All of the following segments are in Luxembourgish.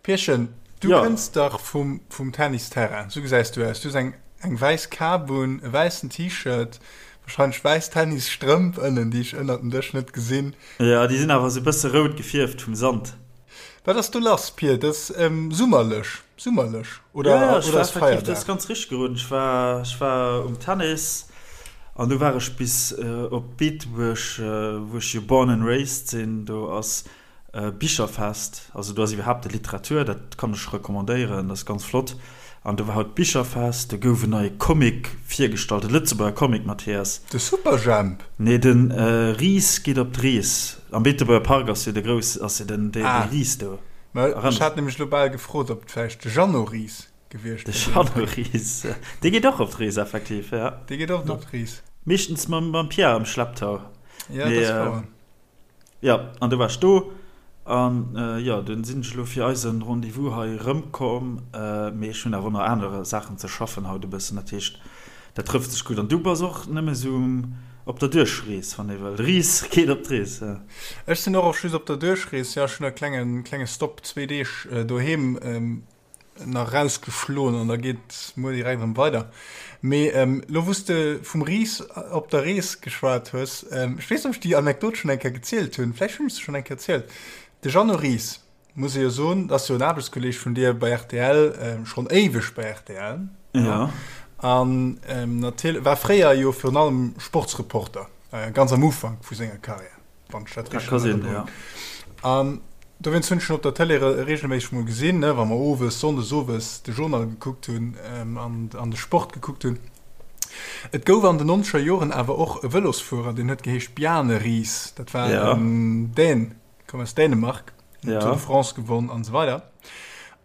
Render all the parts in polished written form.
Pierchen, du ja. kënns dach vum, vum Tennisterrain. Sou gesäis du aus. Du hues eng, eng wäiss Kap un, e wäissen T-Shirt, wahrscheinlech wäiss Tennisstrëmp ënnen, déi ech ënnert dem Dësch net gesinn. Ja, déi sinn awer sou bësse rout gefierft vum Sand. Wat ass do lass, Pir? Dat ass ähm, summerlech, summerlech oder, ja, ja, oder ass Feierdag? Dat ass ganz richteg geroden. Ech war, ech war um Tennis an du war ech bis äh, op Beetebuerg, äh, wou ech jo born and raised sinn. Do ass Bicherfest, also do ass iwwerhaapt Literatur, dat kann ech recommandéieren, dat ass ganz flott. An do war haut d'Bicherfest, do gouf en neie Comic virgestallt, e Lëtzebuerger Comic, Mathias. De Superjhemp? Nee, de Ris geet op d'Rees. Am Beetebuerger Park ass jo de grouss, ass jo den, dee Ris do. Mä ech hat nämlech elo bal gefrot, ob et vläicht de Jeannot Ris gewiescht wier. De Jeannot Ris, dee geet och op d'Rees, effektiv, ja. Dee geet oft op d'Rees. Meeschtens mam Pierre am Schlepptau. Ja, dat ass wouer. Jo, an du waars do. An jo, dunn sinn ech elo fir eisen Rendez-vous hei erëmkomm. Mee ech hunn awer och nach aner Saachen ze schaffen haut e bëssen. Dat heescht, dat trëfft sech gutt. An du bass och nëmme sou op der Duerchrees, wann ee wëll. Rees geet op d'Rees, jo. Ech sinn och just op der Duerchrees, jo. Ech hunn e klengen, klenge Stopp, zwee Deeg doheem. nach rausgeschloen an da geet muer direkt erëm weider. Mee lo wou s de vum Ris op der Rees geschwat hues, ech weess net ob ech déi Anekdot schonn eng Kéier gezielt hunn, vläicht hunn ech se schonn eng Kéier erzielt. De Jeannot Ries, muss ee jo soen, ass jo en Aarbechtskolleeg vun dir bei rtl, schonn éiweg bei rtl, jo, an natierlech war fréier jo virun allem Sportsreporter, ganz am Ufank vu senger Karriär. Wann ech dat richtig in Erinnerung hunn. An dowéinst hunn ech en op der Tëlee reegelméisseg mol gesinn, ne, wa mer owes, sonndes owes de Journal gekuckt hunn an, an de Sport gekuckt hunn. Et gouf an den nonzeger Joren awer och e Vëlosfuerer, deen huet geheescht Bjarne Riis. Dat war en Dän, koum aus Dänemark, huet d'Tour de France gewonn an esou weider.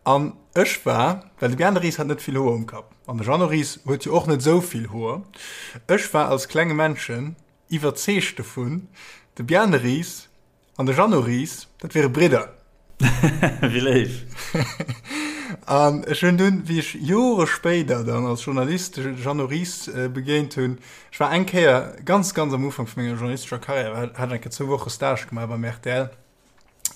An ech war, well de Bjarne Riis hat net vill Hoer um Kapp an de Jeannot Ries huet jo och net esou vill Hoer, ech war als klenge Männchen Iwwerzeegt dovun, de Bjarne Ries an de Jeannot Ries, dat wiere Bridder. Wéi léif! An ech hunn dunn, wéi ech Jore spéider dann als Journalist de Jeannot Ries begéint hunn, ech war eng Kéier ganz, ganz am Ufank vu menger journalistescher Karriär, hat ech eng Kéier zwou Woche Stage gemaach beim rtl,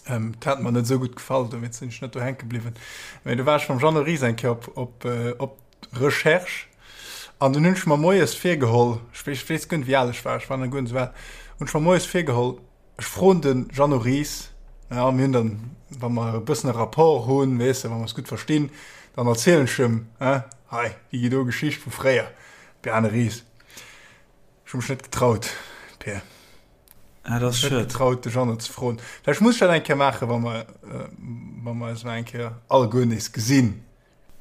Ähm, dat hat mer net esou gutt gefall, dowéinst sinn ech net do hänke bliwwen. Mee do war ech mam Jeannot Ries eng Kéier op, op, äh, op Recherche an dunn hunn ech mer moies virgeholl, ech weess, ech weess guer net wéi al ech war, ech war nach guer net esou al, hunn ech mer moies virgeholl, ech froen de Jeannot Ries, ja, mir hunn dann, wa mer e bëssen e Rapport hunn, weess de, wa mer eis gutt verstinn, dann erzielen ech em, hein, hei, déi do Geschicht vu fréier, Bjarne Ries. Ech hu mech net getraut, Peer. Ah, dat ass Net schued. getraut, de Jeannot ze froen. Vläicht muss ech dat eng Kéier maachen, wa mer, wa mer eis mol eng Kéier alleguer nees gesinn.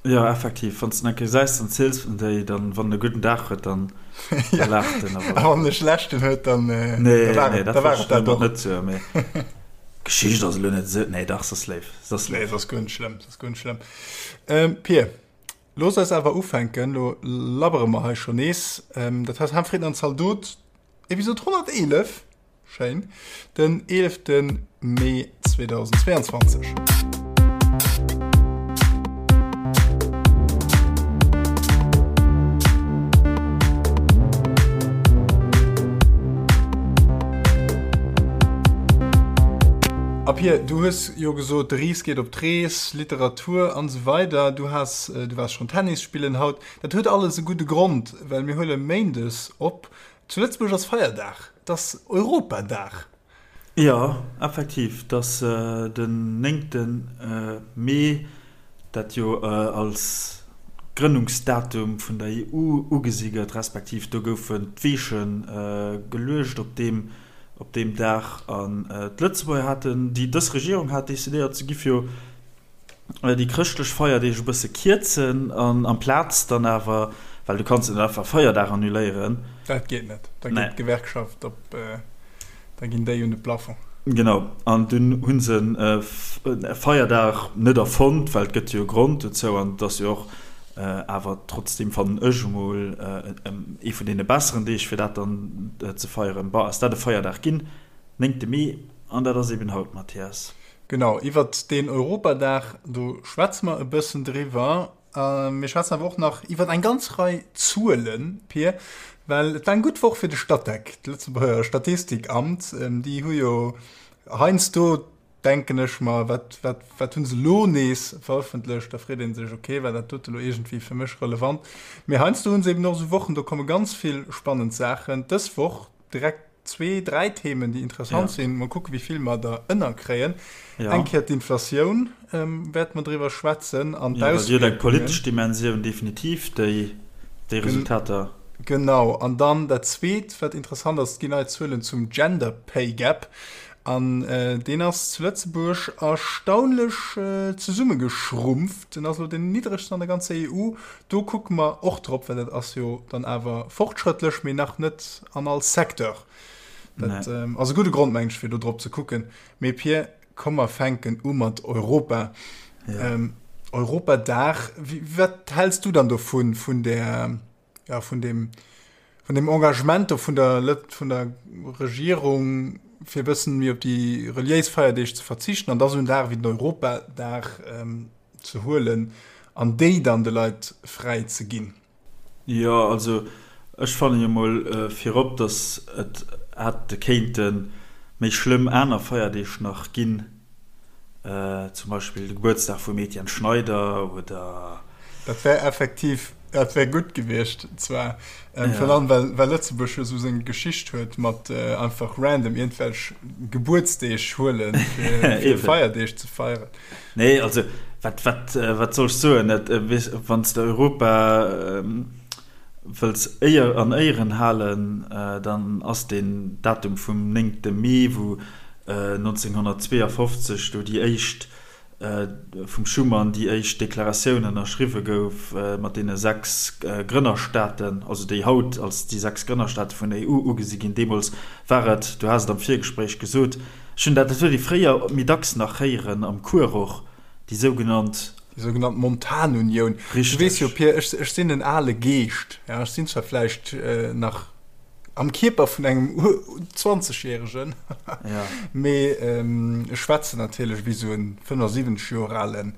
Jo, effektiv. Wann s de en eng Kéier gesäis, dann ziels de déi. Dann, wann en e gudden Dag huet, dann Ja, laacht en. a Awer wann en e schlechten huet, dann, da nee, war nee, et, da dat war wollt et ech dat domat och. net soen, mee d'Geschicht ass elo net esou. Nee, dach, se ass léif. Se ass Nee, léif. se ass guer net schlëmm, se ass guer net schlëmm. Pir, looss eis awer ufänken. Lo labbere mer hei schonn nees. Dat heist, Ham, Fritten an Zaldot. Episode 111, schéin, den 11. Mee 2022. A Pir, du hues jo gesot, de Ries geet op d'Rees, Literatur an esou weider. Du has, du waars schonn Tennis spillen haut. Dat huet alles e gudde Grond, well mir huele méindes op. Zu Lëtzebuerg ass Feierdag, et ass Europadag. Jo, effektiv, et ass den néngte Mee, dat jo als Grënnungsdatum vun der EU ugesi gëtt, respektiv do goufen d'Weeche geluecht op deem op deem Dag. An d'Lëtzebuerger haten, déi dës Regierung hat decidéiert, se giff jo déi chrëschtlech Feierdeeg e bësse kierzen an amplaz dann awer, well du kanns net einfach Feierdag annuléieren. Dat geet net, da geet d'Gewerkschaft op, da ginn déi un de Plafond. Genau, an dunn hu se e Feierdag net erfonnt, well et gëtt jo e Grond dozou an et ass jo och awer trotzdeem, fannen ech emol, ee vun deene besseren Deeg fir dat dann ze feieren. Bon, ass dat e Feierdag ginn, néngte Mee, an dat ass eben haut, Mathias. Genau, iwwert deen Europadag, do schwätze mer e bëssen driwwer. Mir schwätzen awer och nach iwwer eng ganz Rei Zuelen, Pir, well et war eng gutt Woch fir de Statec, d'Lëtzebuerger Statistikamt. Déi hu jo heiansdo. Denken ech mer, wat, wat, wat hunn se elo nees verëffentlecht? Da freet ee sech, okay, war dat dote lo iergendwéi fir mech relevant? Mee heiansdo hunn se eben och esou Wochen, do komme ganz vill spannend Saachen. Dës Woch direkt zwee, dräi Themen, déi interessant ja. sinn. Mol kucke wéi vill mer der ënnerkréien. Ja. Eng Kéier d'Inflatioun ähm, wäerte mer driwwer schwätzen an ja, d'Auswierkungen. Eng politesch Dimensioun definitiv, déi, déi Resultater. Genau. An dann dat Zweet, wat interessant ass, et ginn nei Zuelen zum Gender Pay Gap. An deen ass zu Lëtzebuerg erstaunlech zesummegeschrumpft. En ass elo deen niddregsten an der ganzer EU. Do kucke mer och drop, well dat ass jo dann awer fortschrëttlech, mee nach net an all Secteur. Dat ass e gudde Grond, mengen ech, fir do drop ze kucken. Mee Pir, komm mer fänken u mat Europa. Europadag, wat häls du dann dovun, vun där, ja, vun dem, vun dem Engagement do vun der, vun der Regierung, fir e bëssen méi op déi reliéis Feierdeeg ze verzichten an da sou en Dag wéi den Europadag ähm, ze huelen an déi dann de Leit fräi ze ginn? Jo, also ech fanne jo mol virop, datt et hätte kéinte méi schlëmm aner Feierdeeg nach ginn, Zum Beispill de Gebuertsdag vum Etienne Schneider oder. Dat wär effektiv, dat wär gutt gewiescht zwar, virun allem well, well Lëtzebuerg jo esou seng Geschicht huet mat einfach random iergendwelch Gebuertsdeeg huelen, fir, fir Feierdeeg ze feieren. Nee, also wat, wat, wat soll ech soen? Et, weess, wann s de Europa wëlls éier, an Éieren halen, dann ass deen Datum vum néngte Mee, wou 1952 do déi éischt, vum Schuman déi éischt Deklaratioun ënnerschriwwe gouf mat deene 6 Grënnerstaaten, also déi haut als déi 6 Grënnerstaate vun der EU ugesi ginn. Deemools war et, du has et am Virgespréich gesot, ech hunn dat, dat huet ee fréier méi dacks nach héieren am Cours och, déi sougenannt. Déi sougenannt Montanunioun. Du weess jo, Pir, ech, ech sinn en ale Geescht, ja, ech sinn zwar vläicht nach am Kierper vun engem Zwanzegjäregen, mee ech schwätzen natierlech wéi esou en 75 Joer alen,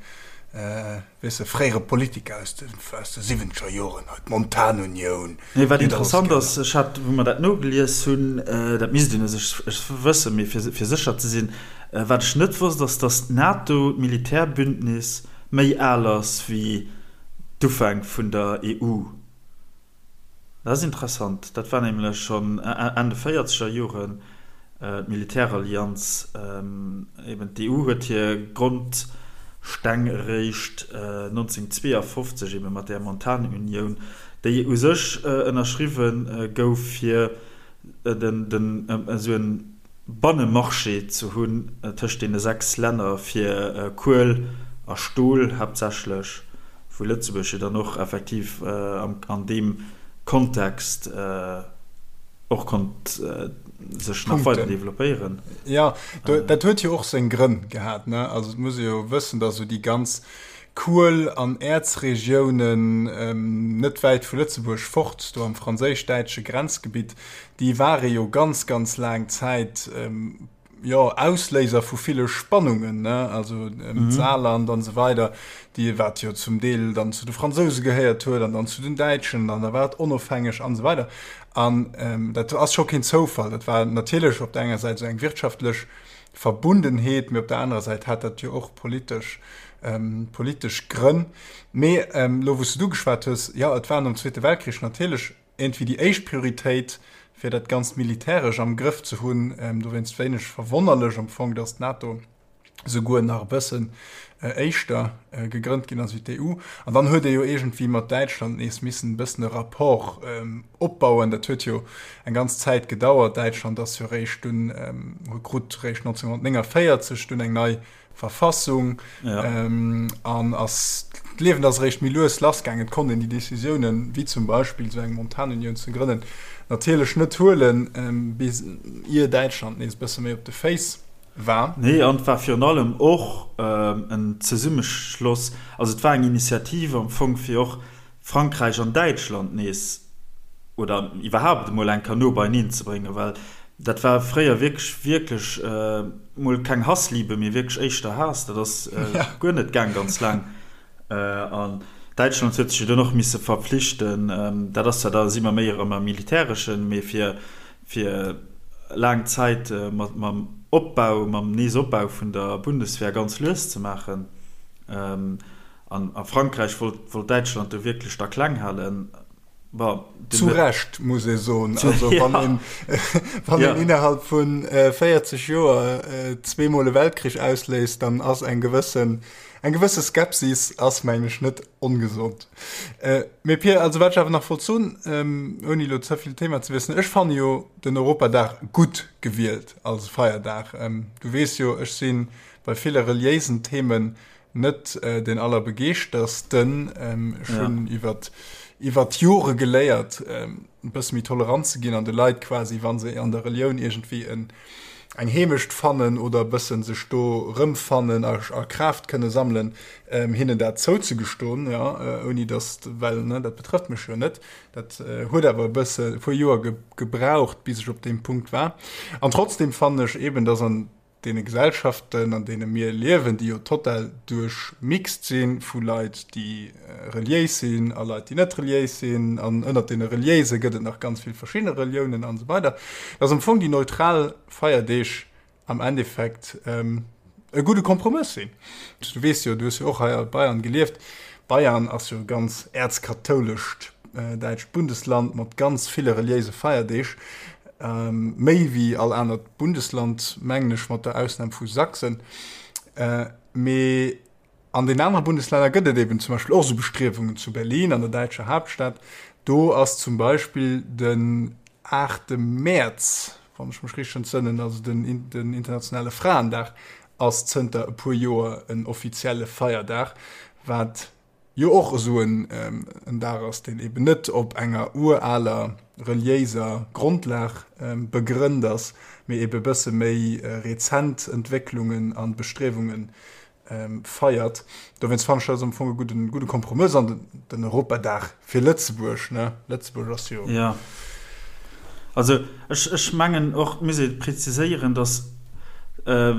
weess de, fréiere Politiker aus de, aus de siwwenzeger Joren, hei d'Montanunioun. Nee, wat interessant ass, ech hat, wou mer dat nogelies hunn, dat misst een u sech wëssen, mee fir, fir sécher ze sinn, wat ech net wosst, ass, datt d'NATO, d'Militärbündnis, méi al ass wéi d'Ufänk vun der EU. Dat ass interessant. Dat war nämlech schonn Enn de véierzeger Joren, d'Militärallianz. Eben d'EU huet hir Grondsteng eréischt 1952 ebe mat där Montanunioun, déi u sech ënnerschriwwe gouf, fir den esou en Bannemarché ze hunn tëscht deene 6 Länner fir Kuel a Stol haaptsächlech, wou Lëtzebuerg jo dann och effektiv an deem Kontext och konnt sech nach weider developpéieren. Jo, dat huet jo och seng Grënn gehat, ne? Also et muss ee jo wëssen, datt esou déi ganz Kuel an Äerzregiounen net wäit vu Lëtzebuerg fort, do am franséisch-däitsche Grenzgebitt, déi ware jo ganz, ganz laang Zäit, jo, Ausléiser vu ville Spannungen, ne, also d'Saarland an esou weider, déi, wat jo zum Deel dann zu de Fransouse gehéiert huet an dann zu den Däitschen an da war et onofhängeg an esou weider. An dat ass scho keen Zoufall. Dat war natierlech op der enger Säit esou eng wirtschaftlech Verbundenheet, mee op der anerer Säit hat dat jo och politesch, politesch Grënn. Mee elo, wou s de du geschwat hues, jo, et war nom Zweete Weltkrich natierlech iergendwéi déi éischt Prioritéit, fir dat Ganzt militäresch am Grëff ze hunn. Dowéinst wéineg verwonnerlech am Fong, datt d'NATO souguer nach e bëssen éischter gegrënnt ginn ass wéi d'EU. An dann huet ee jo iergendwéi mat Däitschland nees missen e bëssen e Rapport opbauen. Dat huet jo eng ganz Zäit gedauert. Däitschland ass jo réischt dunn, krut réischt 1949 dunn eng nei Verfassung an ass d'Liewen ass eréischt méi lues lassgaangen. Et konnt een déi Decisiounen, wéi zum Beispill esou eng Montanunioun ze grënnen, natierlech net huelen, bis ier Däitschland nees e bësse méi op de Féiss war. Nee, an et war virun allem och en Zesummeschloss, also et war eng Initiativ am Fong, fir och Frankräich an Däitschland nees oder iwwerhaapt emol eng Kéier no beieneen ze bréngen, well dat war fréier wierklech, wierklech mol keng Hassliebe, mee wierklech éischter Haass. Dat ass guer net gaang ganz laang. An Däitschland huet sech jo dunn och misse verpflichten, dat ass zwar, da si mer méi erëm am Militäreschen, mee fir, fir laang Zäit mat, mam. Opbau, mam Neesopbau vun der Bundeswehr ganz lues ze maachen. An a Frankräich wollt wollt Däitschland do wierklech da kleng halen. Bon, Zu Recht, muss ee soen. Also wann een, wann een innerhalb vu 40 Joer zweemol e Weltkrich ausléist, dann ass eng gewëssen, eng gewësse Skepsis ass, mengen ech, net ongesond. Mee Pir, also wat ech awer nach wollt soen, ouni elo ze vill d'Thema ze wiesselen, ech fanne jo den Europadag gutt gewielt als Feierdag. Du weess jo, ech si bei ville reliéisen Themen net deen allerbegeeschtersten. Ech hunn iwwer iwwer d'Jore geléiert, e bësse méi tolerant ze ginn an de Leit quasi, wa se an der Relioun iergendwéi en eng Heemecht fannen oder e bësse sech do erëmfannen a a Kraaft kënne sammelen, hinnen dat zouzegestoen, jo, ouni datt, well, ne, dat betrëfft mech jo net. Dat huet awer e bësse e puer Joer gebraucht, bis ech op deem Punkt war. An trotzdem fannen ech eeben, datt an deene Gesellschaften, an deene mir liewen, déi jo total duerchmixt si vu Leit, déi reliéis sinn a Leit, déi net reliéis sinn, an ënnert deene Reliéise gëtt et nach ganz vill verschidde Reliounen an esou weider, dass am Fong déi neutral Feierdeeg am Endeffekt e gudde Kompromëss sinn. Du weess jo, du hues jo och hei a Bayern gelieft, Bayern ass jo e ganz äerzkathoulescht däitscht Bundesland mat ganz ville reliéise Feierdeeg. Méi wéi all anert Bundesland, mengen ech, mat der Ausnam vu Sachsen. Mee an den anere Bundeslänner gëtt et eben zum Beispill och esou Bestriewungen, zu Berlin, an der däitscher Haaptstad, do ass zum Beispill den 8 Mäerz, wann ech mech richteg entsënnen, also den den internationale Fraendag, ass zënter e puer Joer en offizielle Feierdag, wat jo och esou en Dag ass, deen eben net op enger uraler reliéiser Grondlag begrënnt ass, mee ebe bësse méi rezent Entwécklungen a Bestriewunge feiert. Dowéinst fannen ech dat ass am Fong e gudden, gudde Kompromëss an den Europadag fir Lëtzebuerg, ne? Lëtzebuerg ass jo. Jo. Also ech, ech mengen och, et muss ee preziséieren, datt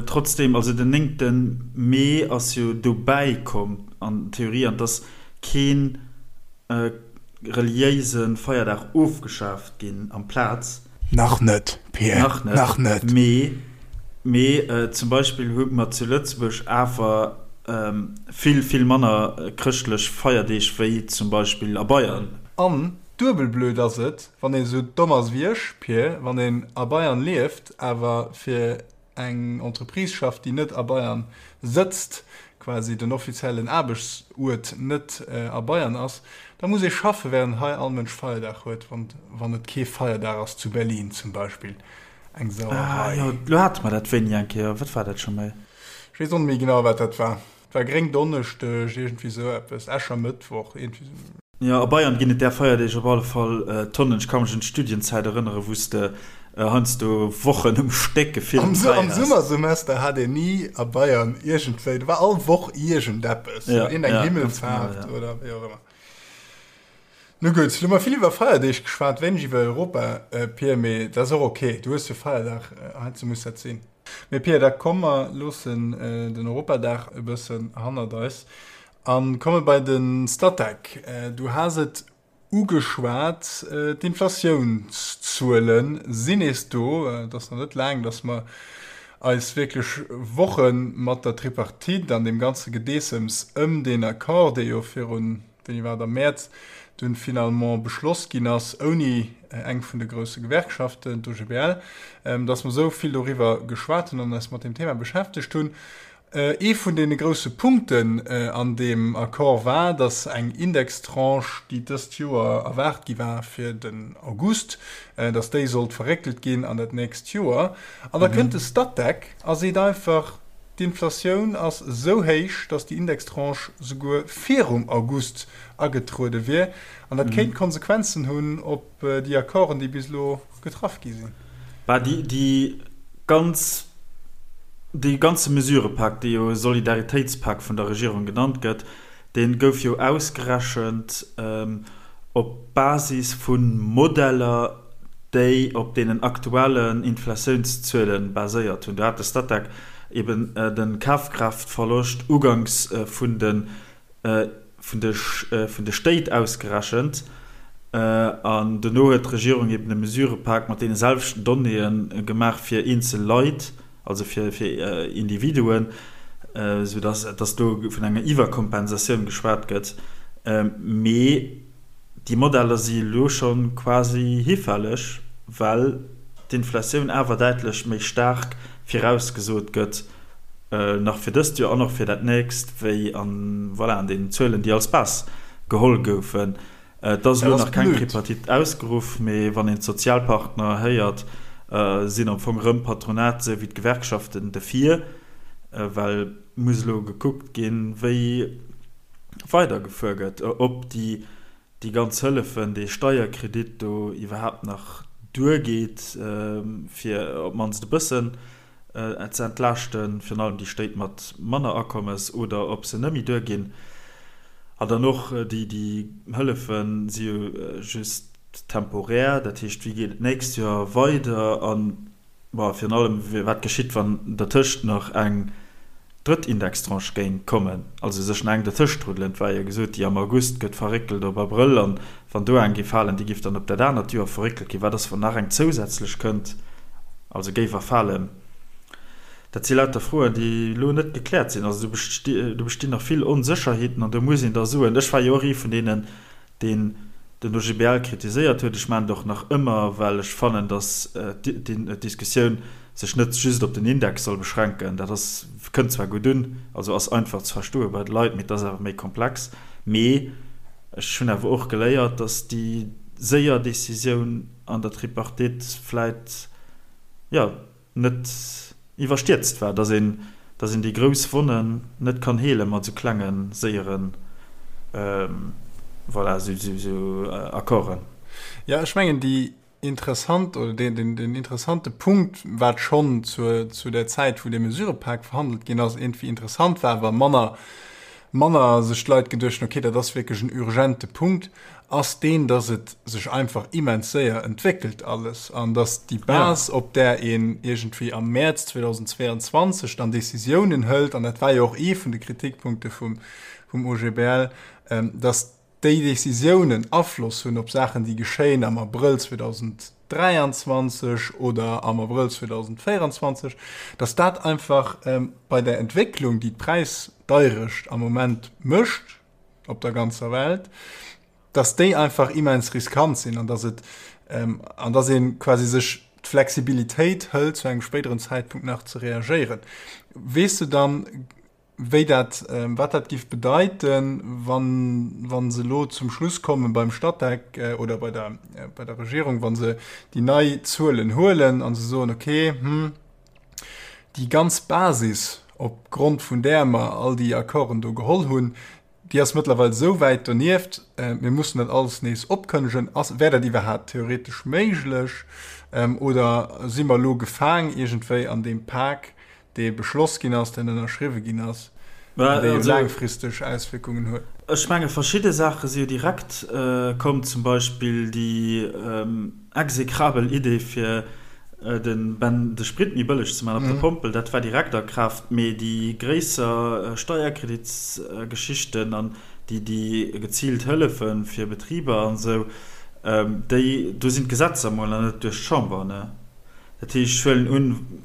trotzdeem, also den néngte Mee ass jo dobäi komm an Theorie, an et ass kee reliéise Feierdag ofgeschaaft ginn amplaz. Nach net, Pir, Nach net. Nach net. Mee, mee zum Beispill hu mer zu Lëtzebuerg awer vill, vill manner chrëschtlech Feierdeeg wéi zum Beispill a Bayern. An duebel blöd ass et, wann een esou domm ass wéi ech, Pir, wann een a Bayern lieft, awer fir eng Entreprise schafft, déi net a Bayern sëtzt, quasi den offiziellen Aarbechtsuert net a Bayern ass, da muss ee schaffe während hei all Mënsch Feierdag huet, wann et kee Feierdag ass zu Berlin zum Beispill. Eng Sauerei. Ah jo, lo hate mer dat wéini eng Kéier. Wat war dat scho méi? Ech weess och net méi genau, wat dat war. Et war Gréngdonneschdeg, iergendwéi esou eppes, Äschermëttwoch, iergendwéi esou. Jo, a Bayern ginn et där Feierdeeg op alle Fall Tonnen. Ech ka mech un d'Studienzäit erënneren, wou s de heiansdo Wochen um Stéck gefillt fräi Am Summersemester hat een ni a Bayern iergendwéi, do war all Woch iergendeppes, iergendeng Himmelfaart oder wéi och ëmmer. Nu gutt, lo hu mer vill iwwer Feierdeeg geschwat, wéineg iwwer Europa, Pir, mee dat ass och ok, du hues jo Feierdag, heiansdo muss dat sinn. Mee Pir, da komm mer loossen den Europadag e bëssen hannert eis a komme bei de Statec. Du has et ugeschwat, d'Inflatiounszuele sinn nees do. Et ass nach net laang, datt mer eis wierklech Woche mat der Tripartite an deem ganze Gedeessems ëm deen Accord, dee jo virun wéini war et, am Mäerz dunn finalement beschloss ginn ass, ouni eng vun de grousse Gewerkschaften, d'OGBL, dass mer esou vill doriwwer geschwat hunn an eis mat deem Thema beschäftegt hunn. Ee vun deene grousse Punkten an deem Accord war, dass eng Indextranche, déi dëst Joer erwaart gi war fir den August, dass déi sollt verréckelt ginn an dat nächst Joer. An da kënnt de Statec a seet einfach, D'Inflatioun ass esou héich, datt déi Indextranche souguer virum August agetruede wier. An dat kéint Konsequenzen hunn op déi Accorden, déi bis elo getraff gi sinn. Bah, déi ganz, dee ganze Mesurëpak, dee jo Solidaritéitspak vun der Regierung genannt gëtt, dee gouf jo ausgerechent op Basis vu Modeller, déi op deenen aktuellen Inflatiounszuele baséiert hunn. Do hat de Statec eben de Kafkraaftverloscht uganks vun de vun de vun de Stéit ausgerechent an dono huet d'Regierung eben e Mesurepak mat deene selwechten Donnéeë gemaach fir eenzel Leit. Also fir Individuen, esou datt do vun enger Iwwerkompensatioun geschwat gëtt. Mee déi Modeller si elo scho quasi hifälleg, well d'Inflatioun awer däitlech méi staark virausgesot gëtt, nach fir dëst Joer an och fir dat nächst, wéi an, voilà, an deenen Zuelen, déi als Base geholl goufen. Et ass elo nach keng Tripartite ausgeruff, mee wann een d'Sozialpartner héiert, sinn am Fong erëm d'Patronat esou wéi d'Gewerkschaften defir, well muss elo gekuckt ginn, wéi weidergefuer gëtt, ob déi déi ganz Hëllefen, dee Steierkredit do iwwerhaapt nach duergeet, fir op d'mannst e bëssen ze entlaaschten, virun allem déi Stéit mat manner Akommes, oder ob se net méi duerginn. An dann och déi Hëllefe si jo just temporär, dat heescht, wéi geet et d'nächst Joer weider? A bon, virun allem, wat geschitt, wann dertëscht nach eng drëtt Indextranche géing kommen, also sech nach eng dertëscht ruddelen? Et war jo gesot, déi am August gëtt verréckelt op Abrëll, an wann do eng géif falen, déi géif dann op dat anert Joer verréckelt ginn. Wat ass, wann nach eng zousätzlech kënnt, also géif erfalen? Dat si lauter Froen, déi elo net gekläert sinn. Also do bestinn nach vill Onsécherheeten an do muss een da soen, ech war jo och ee vun deenen, deen den OGBL kritiséiert huet, ech maachen et och nach ëmmer, well ech fannen, datt d'Diskussioun sech net just op den Index soll beschränken. Dat ass, kënnt zwar gutt un, also ass einfach ze verstoe bei de Leit, mee et ass awer méi komplex. Mee ech hunn awer och geléiert, datt déi séier Decisioun an der Tripartite vläit, jo, net iwwerstierzt war, dass een, dass een déi grouss Wonnen net kann heele mat esou klengen, séieren, voilà, esou, esou, esou Accorden. Jo, ech mengen, déi interessant, oder deen, deen, deen interessante Punkt, wat schonn zur, zu där Zäit, wou dee Mesurëpak verhandelt ginn ass, iergendwéi interessant war, awer manner, manner sech d'Leit geduecht hunn, okay, dat ass wierklech en urgente Punkt, ass deen, dass et sech einfach immens séier entwéckelt alles an dass déi Base, op där een iergendwéi am Mäerz 2022 dann Décisiounen hëlt, an dat war jo och ee vun de Kritikpunkte vum, vum OGBL, dass déi Décisiounen Afloss hunn op Saachen, déi geschéien am Abrëll 2023 oder am Abrëll 2024, dass dat einfach bei der Entwécklung, déi d'Präisdeirecht am Moment mécht, op der ganzer Welt, dass déi einfach immens riskant sinn an dass et ähm, an dass een quasi sech d'Flexibilitéit hëlt zu engem spéideren Zäitpunkt nach ze reagéieren. Weess du dann, wéi dat ähm, wat dat giff bedeiten, wann wann se elo zum Schluss kommen beim Statec äh, oder bei der äh, bei der Regierung, wann se déi nei Zuelen huelen an se soen okay, hm, Déi ganz Basis, op Grond vun där mer all déi Accorden do geholl hunn, déi ass mëttlerweil esou wäit donieft, mir mussen dat alles nees opkënnegen. Ass, wär dat iwwerhaapt theoretesch méiglech oder si mer elo gefaang iergendwéi an deem Pak, dee beschloss ginn ass, deen ënnerschriwwe ginn ass an dee jo laangfristeg Auswierkungen huet? Ech menge verschidde Saache si jo direkt komm, zum Beispill déi Execrabel Idee fir den Ben de Sprit méi bëlleg ze man op der Pompel, dat war direkt a Kraaft, mee déi gréisser Steierkreditsgeschichten an déi déi geziilt Hëllefe fir Betriber an esou, déi do sinn d'Gesetzer mol nach net duerch d'Chamber, ne? Dat heescht, ech huelen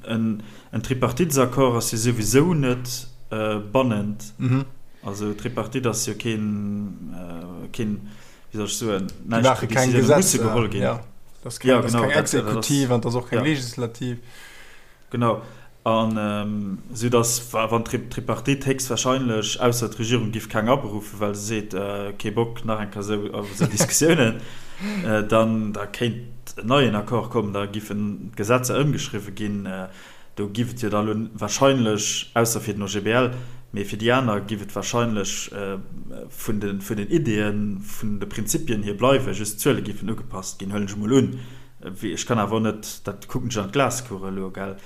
un, en Tripartitesaccord ass jo souwisou net bannend, also Tripartite ass jo keen keen wéi soll ech soen, näischt maache keng Gesetzer geholl ginn. Ja. Das keng, ja, genau, das keng Exekutiv an das och keng ja. Legislativ. Genau. An ähm, sou dass wann d'Tripartite héchstwahrscheinlech, ausser d'Regierung giff keng aberuffen, well se seet, äh, kee Bock nach eng Kéier sou op esou Diskussiounen, äh, dann da kéint en neien Accord kommen, da giffen d'Gesetzer ëmgeschriwwe ginn. Äh, Do giff et jo da lo wahrscheinlech, ausser fir den OGBL, mee fir déi aner giff et wahrscheinlech vun de vun den Ideeën, vun de Prinzipien hier bleiwen, just d'Zuele giffen ugepasst ginn, huelen ech emol un. Ech kann awer och net, dat kucken ech an d'Glaskugel elo, gell.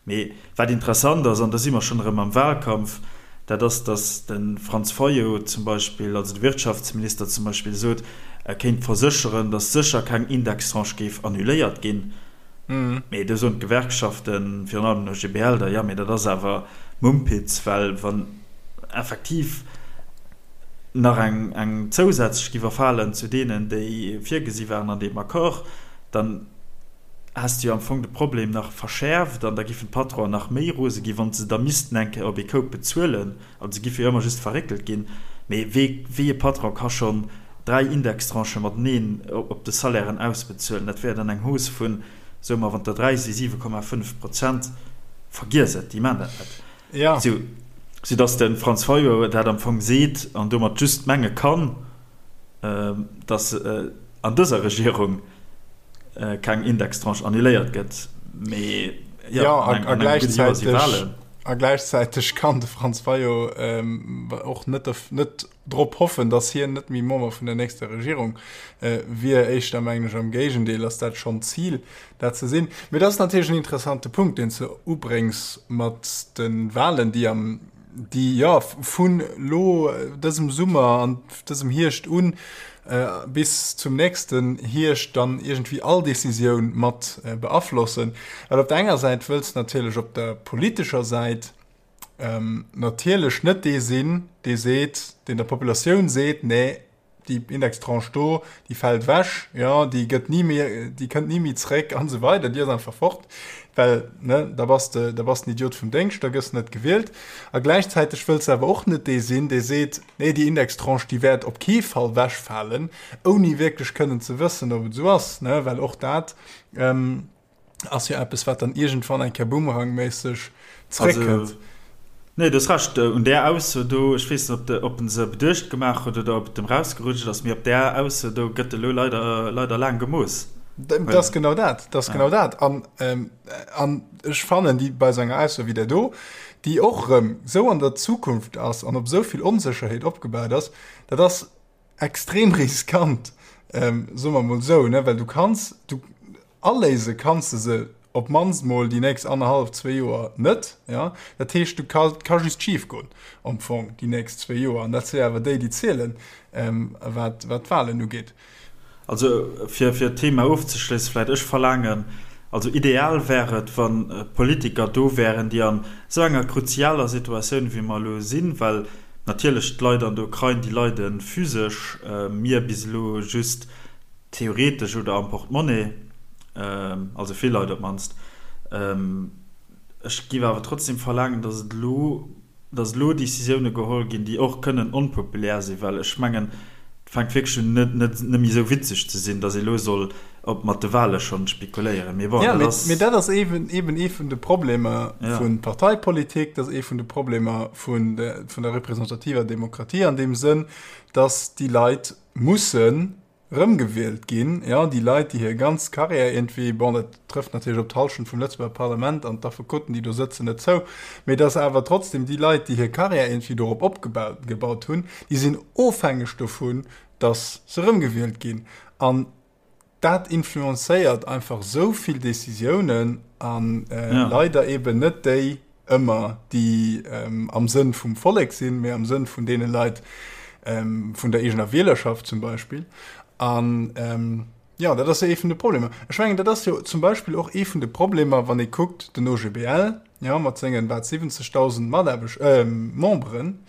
Mee wat interessant ass, an da si mer schonn erëm am Wahlkampf, dat ass, datt de Franz Fayot zum Beispill, also de Wirtschaftsminister zum Beispill, sot, e kéint versécheren, datt sécher keng Indextranche géif annuléiert ginn. Mee do soen d'Gewerkschaften, virun allem den OGBL, da, jo, mee dat ass awer Mumpitz, well wann effektiv nach eng, eng zousätzlech giff erfalen zu deenen, déi virgesi waren an deem Accord, dann. häss de jo am Fong de Problem nach verschäerft an da giffen d'Patronen nach méi rose ginn, wa se da missten eng Kéier op ee Koup bezuelen. Also se giffe jo ëmmer just verréckelt ginn. Mee wee, wéi e Patron ka schonn 3 Indextranchë mateneen op de Salairen ausbezuelen? Dat wär dann eng Hausse vun, soe mer, wann der 3 si 7,5 Prozent. Vergiess et, déi maachen dat net. Ja. Sou, soudass de Franz Fayot dat am Fong seet an domat just menge kann, dass an dëser Regierung keng Indextranche annuléiert gëtt. Mee jo, ja, an engem gudde Joer si Wahlen. A gläichzäiteg kann de Franz Fayot och net, net drop hoffen, dass hien net méi Member vun der nächster Regierung wier. Éischter mengen ech am Géigendeel ass dat schonn d'Zil, dat ze sinn. Mee dat ass natierlech en interessante Punkt, deen s de ubréngs mat de Wahlen, déi am déi jo vun elo dësem Summer an dësem Hierscht un bis zum nächsten Hierscht dann iergendwéi all Decisioun mat beaflossen. Well op der enger Säit wëlls de natierlech op der politescher Säit natierlech net dee sinn, dee seet, deen der Populatioun seet, nee, déi Indextranche do, déi fält ewech, jo, déi gëtt ni méi, déi kënnt ni méi zréck an esou weider, déi ass einfach fort, well, ne, da bass de, da bass den Idiot vum Déngscht, da gëss de net gewielt. A gläichzäiteg wëlls de awer och net dee sinn, dee seet, nee, déi Indextranche, déi wäert op kee Fall wechfalen, ouni wierklech kënnen ze wëssen, ob et esou ass, ne, well och dat, Ass jo eppes, wat dann iergendwann eng Kéier boomerangméisseg zréckkënnt. Also, nee, du hues Recht, un där Ausso do, ech weess net, ob de, ob en se beduecht gemaach huet oder ob et em rausgerutscht ass, mee op där Ausso do gëtt elo leider, leider laang gemooss. Dat ass genau dat, dat ass genau dat. An, an ech fannen, déi bei esou enger Ausso wéi där do, déi och erëm esou an der Zukunft ass an op esou vill Onsécherheet opgebaut ass, dat ass, extrem riskant, soe mer mol esou, ne, well du kanns, du aléise kanns de se op d'mannst mol déi nächst annerhallef, zwee Joer net, ja. Dat heescht, du ka, et ka just schif goen am Fong déi nächst zwee Joer, an dat si awer déi, déi zielen, wat, wat d'Wahlen ugeet. Also fir, fir d'Thema ofzeschléissen vläicht, ech verlaangen, also ideal wär et, wa Politiker do wären, déi an esou enger kruzialer Situatioun, wéi mer elo sinn, well Natierlech, d'Leit an der Ukrain, déi leide physesch, mir bis elo just theoretesch oder am Portemonnaie, also vill Leit op d'mannst. Ech géif awer trotzdem verlaangen, datt et elo, datt elo Decisioune geholl ginn, déi och kënnen onpopulär sinn, well ech mengen, et fänkt wierklech un net net méi esou witzeg ze sinn, datt ee elo soll op mat de Wahle schonn spekuléieren. Mee bon, Ja, dat ass. Mee dat ass eben, eben ee vun de Problemer ja. vun Parteipolitik, dat ass ee vun de Problemer vun de, vun der representativer Demokratie an deem Sënn, dass déi Leit mussen rëmgewielt ginn, ja, déi Leit, déi hir ganz Carrière iergendwéi, bon, dat trëfft natierlech op d'Hallschent vum Lëtzebuerger Parlament an d'Affekoten, déi do sëtzen, net zou, mee dass awer trotzdem déi Leit, déi hir Carrière iergendwéi dorop opgebaut gebaut hunn, déi sinn ofhängeg dovun, dass se rëmgewielt ginn. An dat influencéiert einfach esou vill Decisiounen an äh, ja. leider eben net déi ëmmer, déi ähm, am Sënn vum Vollek sinn, mee am Sënn vun deene Leit ähm, vun der eegener Wielerschaft zum Beispill. An ähm, ja, dat ass jo ee vun de Problemer. Ech mengen, dat ass jo zum Beispill och ee vun de Problemer, wann ee kuckt, den OGBL, ja, mat sengen wat 70.000 Mataarbecht, äh, Memberen,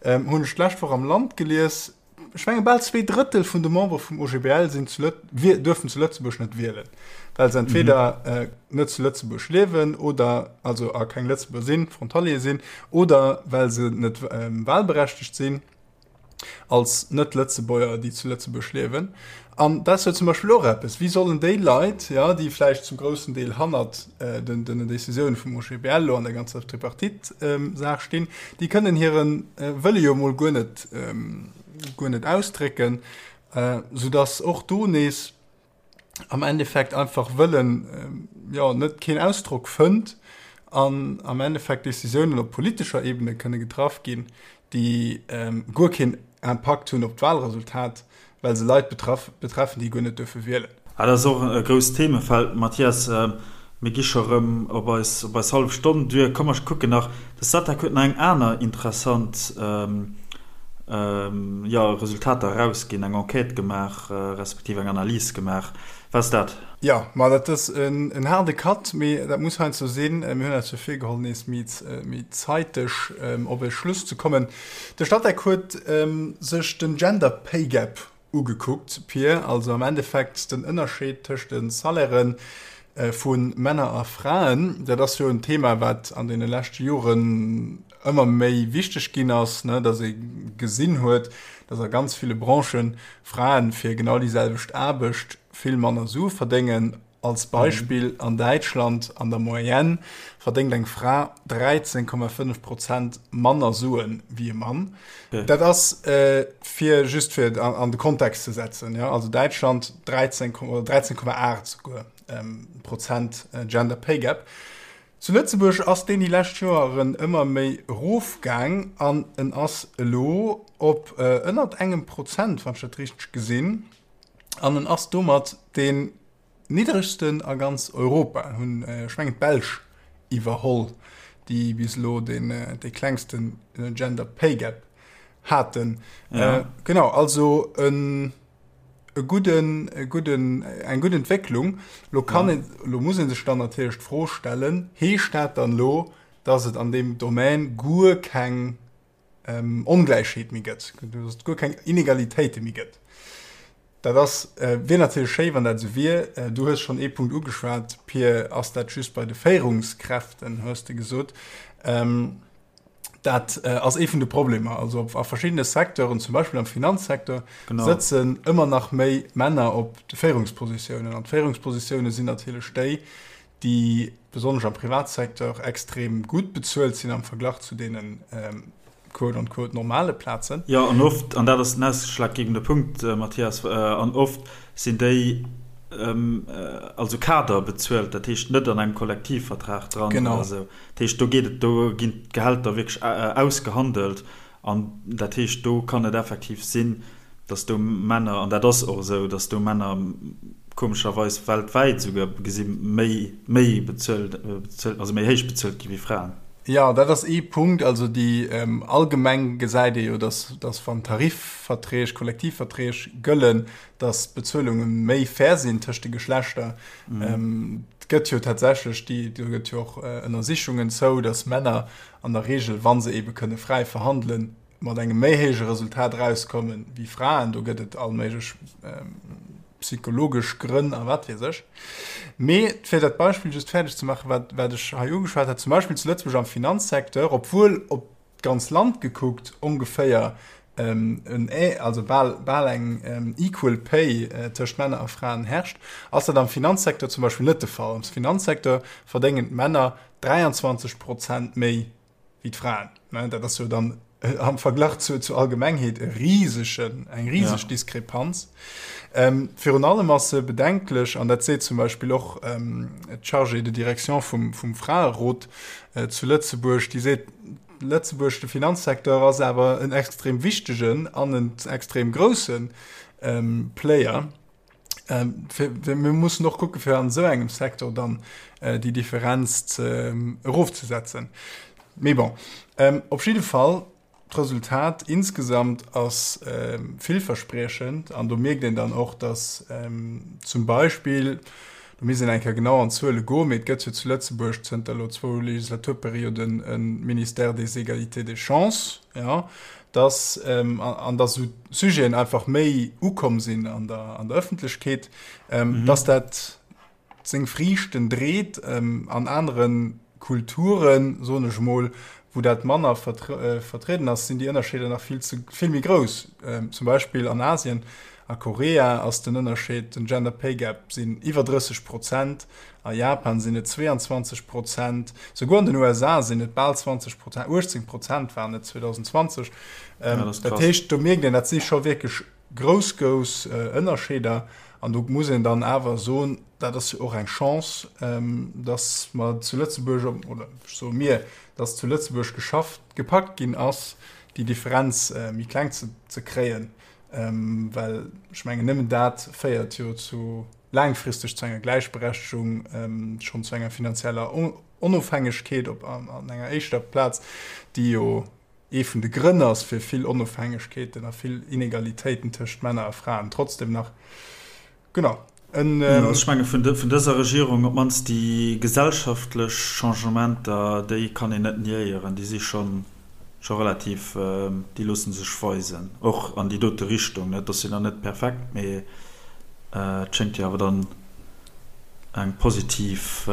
ähm, hunn ech d'lescht Woch am Land gelies, Ech menge bal 2/3 vun de Membere vum OGBL sinn zu Lët-, duerfen zu Lëtzebuerg net wielen, well se entweder net zu Lëtzebuerg liewen oder also a keng Lëtzebuerger sinn, Frontalier sinn, oder well se net wahlberechtegt sinn als Net-Lëtzebuerger, déi zu Lëtzebuerg liewen. An dat ass jo zum Beispill och eppes, Wéi sollen déi Leit, jo, déi vläicht zum groussen Deel hannert den Décisioune vum OGBL elo an der ganzer Tripartite-Saach stinn, déi kënnen hire Wëlle jo emol guer net, guer net ausdrécken, soudass och do nees am Endeffekt einfach Wëllen, jo, net keen Ausdrock fënnt an am Endeffekt Décisiounen op politescher Ebene kënne getraff ginn, déi guer keen Impakt hunn op d'Wahlresultat. Well se Leit betreffen, déi guer net duerfe wielen. Ah, dat ass och e grousst Themefeld, Mathias. Mir gi scho rëm op eis, op eis hallef Stonn duer. Komm, mer kucken nach, de Statec huet nach eng aner interessant, jo, Resultater erausginn, eng Enquête gemaach, respektiv eng Analys gemaach. Wat ass dat? Jo, ma dat ass en haarde Cut, mee dat muss heiansdo sinn. Mir hunn eis jo virgeholl, nees méi, méi zeiteg op e Schluss ze kommen. De Statec huet sech den Gender Pay Gap ugekuckt, Pir, also am Endeffekt den Ënnerscheed tëscht de Salairen. vu Männer a Fraen. Dat ass jo en Thema, wat an deene leschte Joren ëmmer méi wichteg ginn ass, ne, dass ee gesinn huet, dass a ganz ville Branchen Fraen fir genau déi selwecht Aarbecht vill manner Sue verdéngen. Als Beispill, an Däitschland an der Moyenne verdéngt eng Fra 13,5 Prozent manner Sue wéi e Mann. Dat ass fir just fir an de Kontext ze setzen, jo, also Däitschland 13, oder 13,8 souguer Prozent Gender Pay Gap. Zu Lëtzebuerg ass deen déi lescht Joeren ëmmer méi erofgaang an en ass elo op ënnert engem Prozent, wann ech dat richteg gesinn, an en ass domat deen niddregsten a ganz Europa. Hunn, ech mengen, d'Belsch iwwerholl, déi bis elo deen dee klengsten Gender Pay Gap haten. Genau, also en. e gudden, e gudden, eng gutt Entwécklung. Lo kann een, lo muss ee sech dann natierlech d'Fro stellen, Heescht dat dann elo, datt et an deem Domän guer keng Ongläichheet méi gëtt, datt et guer keng Inegalitéite méi gëtt? Dat ass, wier natierlech schéi, wann dat esou wier. Du hues schonn ee Punkt ugeschwat, Pir, ass dat just bei de Féierungskräften, hues de gesot. Dat ass ee vun de Problemer. Also a verschiddene Secteuren, zum Beispill am Finanzsecteur, sëtzen ëmmer nach méi Männer op de Féierungspositiounen. An d'Féierungspositioune sinn natierlech déi, déi besonnesch am Privatsecteur extrem gutt bezuelt sinn am Verglach zu deene quote on quote normale Plazen. Jo, an oft, an dat ass den ausschlaggebende Punkt, Mathias, an oft sinn déi also Kader bezuelt, dat heescht net an engem Kollektivvertrag dran oder esou. Dat heescht, do geet et, do ginn d'Gehälter wierklech ausgehandelt an dat heescht, do kann et effektiv sinn, datt do Männer, an dat ass och esou, datt do Männer komescherweis weltwäit esouguer gesi méi, méi bezuelt, also méi héich bezuelt gi wéi Fraen. Jo, dat ass ee Punkt. Also déi allgemeng gesäit ee jo, datt, datt wann Tarifverträg, Kollektivverträg gëllen, datt d'Bezuelunge méi fair sinn tëscht de Geschlechter. Et gëtt jo tatsächlech déi, do gëtt jo och Ënnersichungen zou, datt Männer an der Regel, wa se eebe kënne fräi verhandelen, mat engem méi héije Resultat erauskommen wéi Fraen. Do gëtt et all méiglech psychologesch Grënn a wat weess ech. Mee fir dat Beispill just fäerdeg ze maachen, wat, wat ech hei ugeschwat hat, zum Beispill zu Lëtzebuerg am Finanzsecteur, obwuel op d'ganz Land gekuckt ongeféier en, also bal, bal eng equal pay tëscht Männer a Fraen herrscht, ass dat am Finanzsecteur zum Beispill net de Fall. Am Finanzsecteur verdéngen d'Männer 23 Prozent méi wéi d'Fraen. Dat ass jo dann am Verglach zu, zur Allgemengheet e risegen, eng riseg ja. Diskrepanz. Ähm, virun allem ass se bedenklech, an dat seet zum Beispill och ähm, d'Chargée de direction vum, vum Fraerot äh, zu Lëtzebuerg, déi seet, Lëtzebuerg, de Finanzsecteur ass awer en extrem wichtegen an en extrem groussen ähm, Player. Ähm, fir, fir, mir mussen och kucke fir an esou engem Secteur dann äh, déi Differenz ze, ähm, erofzesetzen. Mee bon, ähm, op jidde Fall, D'Resultat insgesamt ass villverspriechend an do mierkt een dann och, datt zum Beispill, do misst een eng Kéier genau an d'Zuele goen, mee et gëtt jo zu Lëtzebuerg zënter elo zwou Legislaturperioden e Ministère des Égalités des chances, jo, datt an datt esou Sujeten einfach méi ukomm sinn an der an der Ëffentlechkeet, datt dat seng Friichten dreet. An anere Kulturen, soen ech emol, wou dat manner vertrieden ass, sinn déi Ënnerscheeder nach vill ze vill méi grouss. Zum Beispill an Asien, a Korea ass den Ënnerscheed, den Gender Pay Gap, sinn iwwer 30 Prozent, a Japan sinn et 22 Prozent, souguer an den USA sinn et bal 20 Prozent, 18 Prozent waren et 2020. Dat heescht, do mierkt een, dat si scho wierklech Grouss, grouss Ënnerscheeder. An do muss een dann awer soen, dat ass jo och eng Chance, dass mer zu Lëtzebuerg, oder ech soe mir, dass zu Lëtzebuerg geschafft, gepackt ginn ass, déi Differenz méi kleng ze kréien. Well ech mengen, nëmmen dat féiert jo zu laangfristeg zu enger Gläichberechtegung, schonn zu enger finanzieller Onofhängegkeet op an enger éischter Plaz, déi jo ee vun de Grënn ass fir vill Onofhängegkeeten a vill Inegalitéiten tëscht Männer a Fraen trotzdem nach. Genau. En. Jo, ech menge vun dëser Regierung, op d'mannst déi gesellschaftlech Changementer, déi kann een net niéieren, déi si scho scho relativ, déi loosse sech weisen, och an déi dote Richtung. Et ass jo nach net perfekt, mee et schéngt jo awer dann. Eng positiv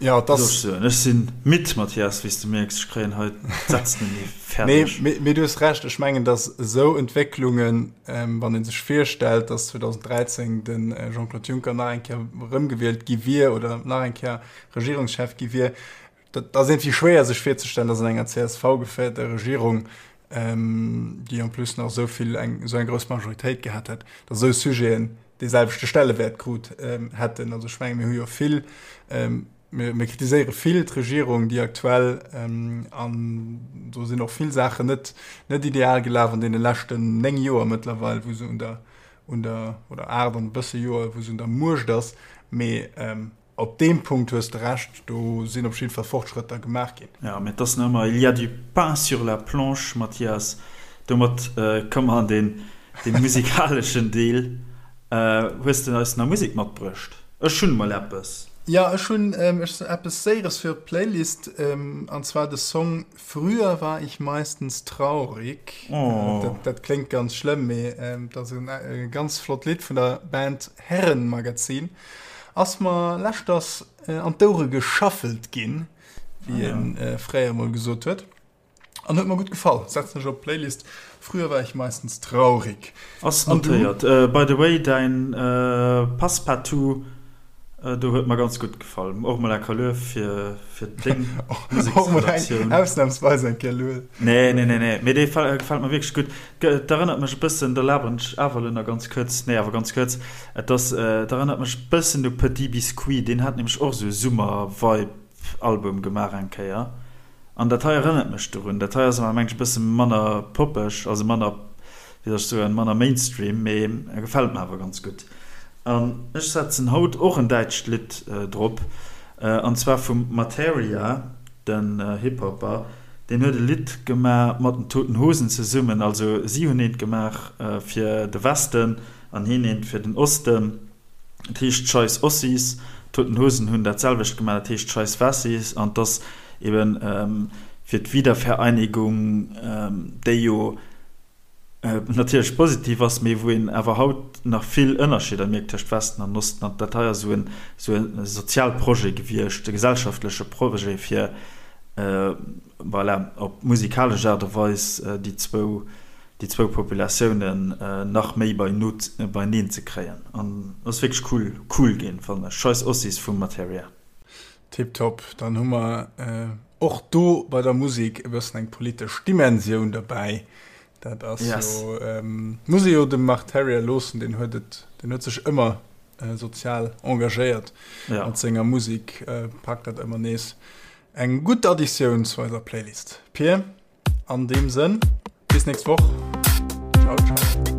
ja, das Ech sinn midd, Mathias, wéi s de mierks. Ech kréien hei d'Sätz net méi fäerdeg. Nee, mee du hues Recht. Ech mengen, datt esou Entwécklungen, wann ee sech virstellt, datt 2013 de Jean-Claude Juncker nach eng Kéier erëmgewielt gi wier oder nach eng Kéier Regierungschef gi wier, Dat ass iergendwéi schwéier sech virzestellen, datt an enger CSV-geféierter Regierung, déi en plus nach esou vill eng esou eng grouss Majoritéit gehat hätt, datt esou Sujeten dee selwechte Stellewäert krut hätten. Also ech menge mir hu jo vill, mir mir kritiséiere vill d'Regierung, déi aktuell, an do sinn och vill Saachen net net ideal gelaf an deene leschten 9 Joer mëttlerweil, wou se un der un der oder 8 an e bësse Joer, wou se un der Muecht ass, mee Op deem Punkt hues de Recht, do sinn op jidde Fall Fortschrëtter gemaach ginn. Jo, mee et ass nach ëmmer, il y a du pain sur la planche, Mathias. Domat komme mer an dee musikaleschen Deel. Hues de eis nach Musek matbruecht? Ech hunn emol eppes. Jo, ech hunn eppes Séieres fir op d'Playlist, an zwar de Song Früher war ich meistens traurig. Oh. Dat, dat kléngt ganz schlëmm, mee dat ass e ganz flott Lidd vun der Band Herrenmagazin. Ass mer leschters an d'Ouere geschaffelt ginn, wéi ah, ja. fréier mol gesot huet. An huet mer gutt gefall. Setzen ech op d'Playlist. Früher war ich meistens traurig. Ass notéiert. By the way, däin Passepartout do huet mer ganz gutt gefall. Och mol eng Luef fir, fir deng Museksredaktioun. Ausnahmsweis eng Kéier Luef. Nee, nee, nee, nee. Mee dee gefält mer wierklech gutt. Et erënnert mech e bëssen, da laberen ech awer elo nach ganz kuerz, nee awer ganz kuerz, et ass, et erënnert mech e bëssen u Petit Biscuit, deen hat nämlech och esou e Summer-Vibe-Album gemaach eng Kéier. An dat hei erënnert mech dorun. Dat hei ass awer mengen ech e bësse manner poppeg, also manner, wéi soll ech soen, manner Mainstream, mee e gefält mer awer ganz gutt. An ech setzen haut och en däitscht Lidd drop, an zwar vum Marteria, den Hip-Hopper. Deen huet e Lidd gemaach mat den Toten Hosen zesummen, also si hunn eent gemaach fir de Westen an hien eent fir den Osten. Et heescht Scheiss Ossis. D'Toten Hosen hunn dat selwecht gemaach, dat heescht Scheiss Wessis. An 't ass eben fir d'Wiedervereinigung, déi jo natierlech positiv ass, mee wou een awer haut nach vill Ënnerscheeder mierkt tëscht Westen an Osten. An dat hei ass esou e Sozialprojet gewiescht, e gesellschaftleche Projet, fir voilà, op musikalesch Aart a Weis déi zwou déi zwou Populatiounen nach méi beineen ze kréien an ass wierklech cool cool ginn fannen ech. Scheiss Ossis vum Materia. Tiptop, dann hu mer och do bei der Musek e bëssen eng politesch Dimensioun derbäi. Dat ass jo, muss ee jo dem Marteria loossen, deen huet et, deen huet sech ëmmer sozial engagéiert mat senger Musek, packt dat ëmmer nees. Eng gutt Additioun zu eiser Playlist, Pir. An deem Sënn, bis nächst Woch. Ciao, ciao.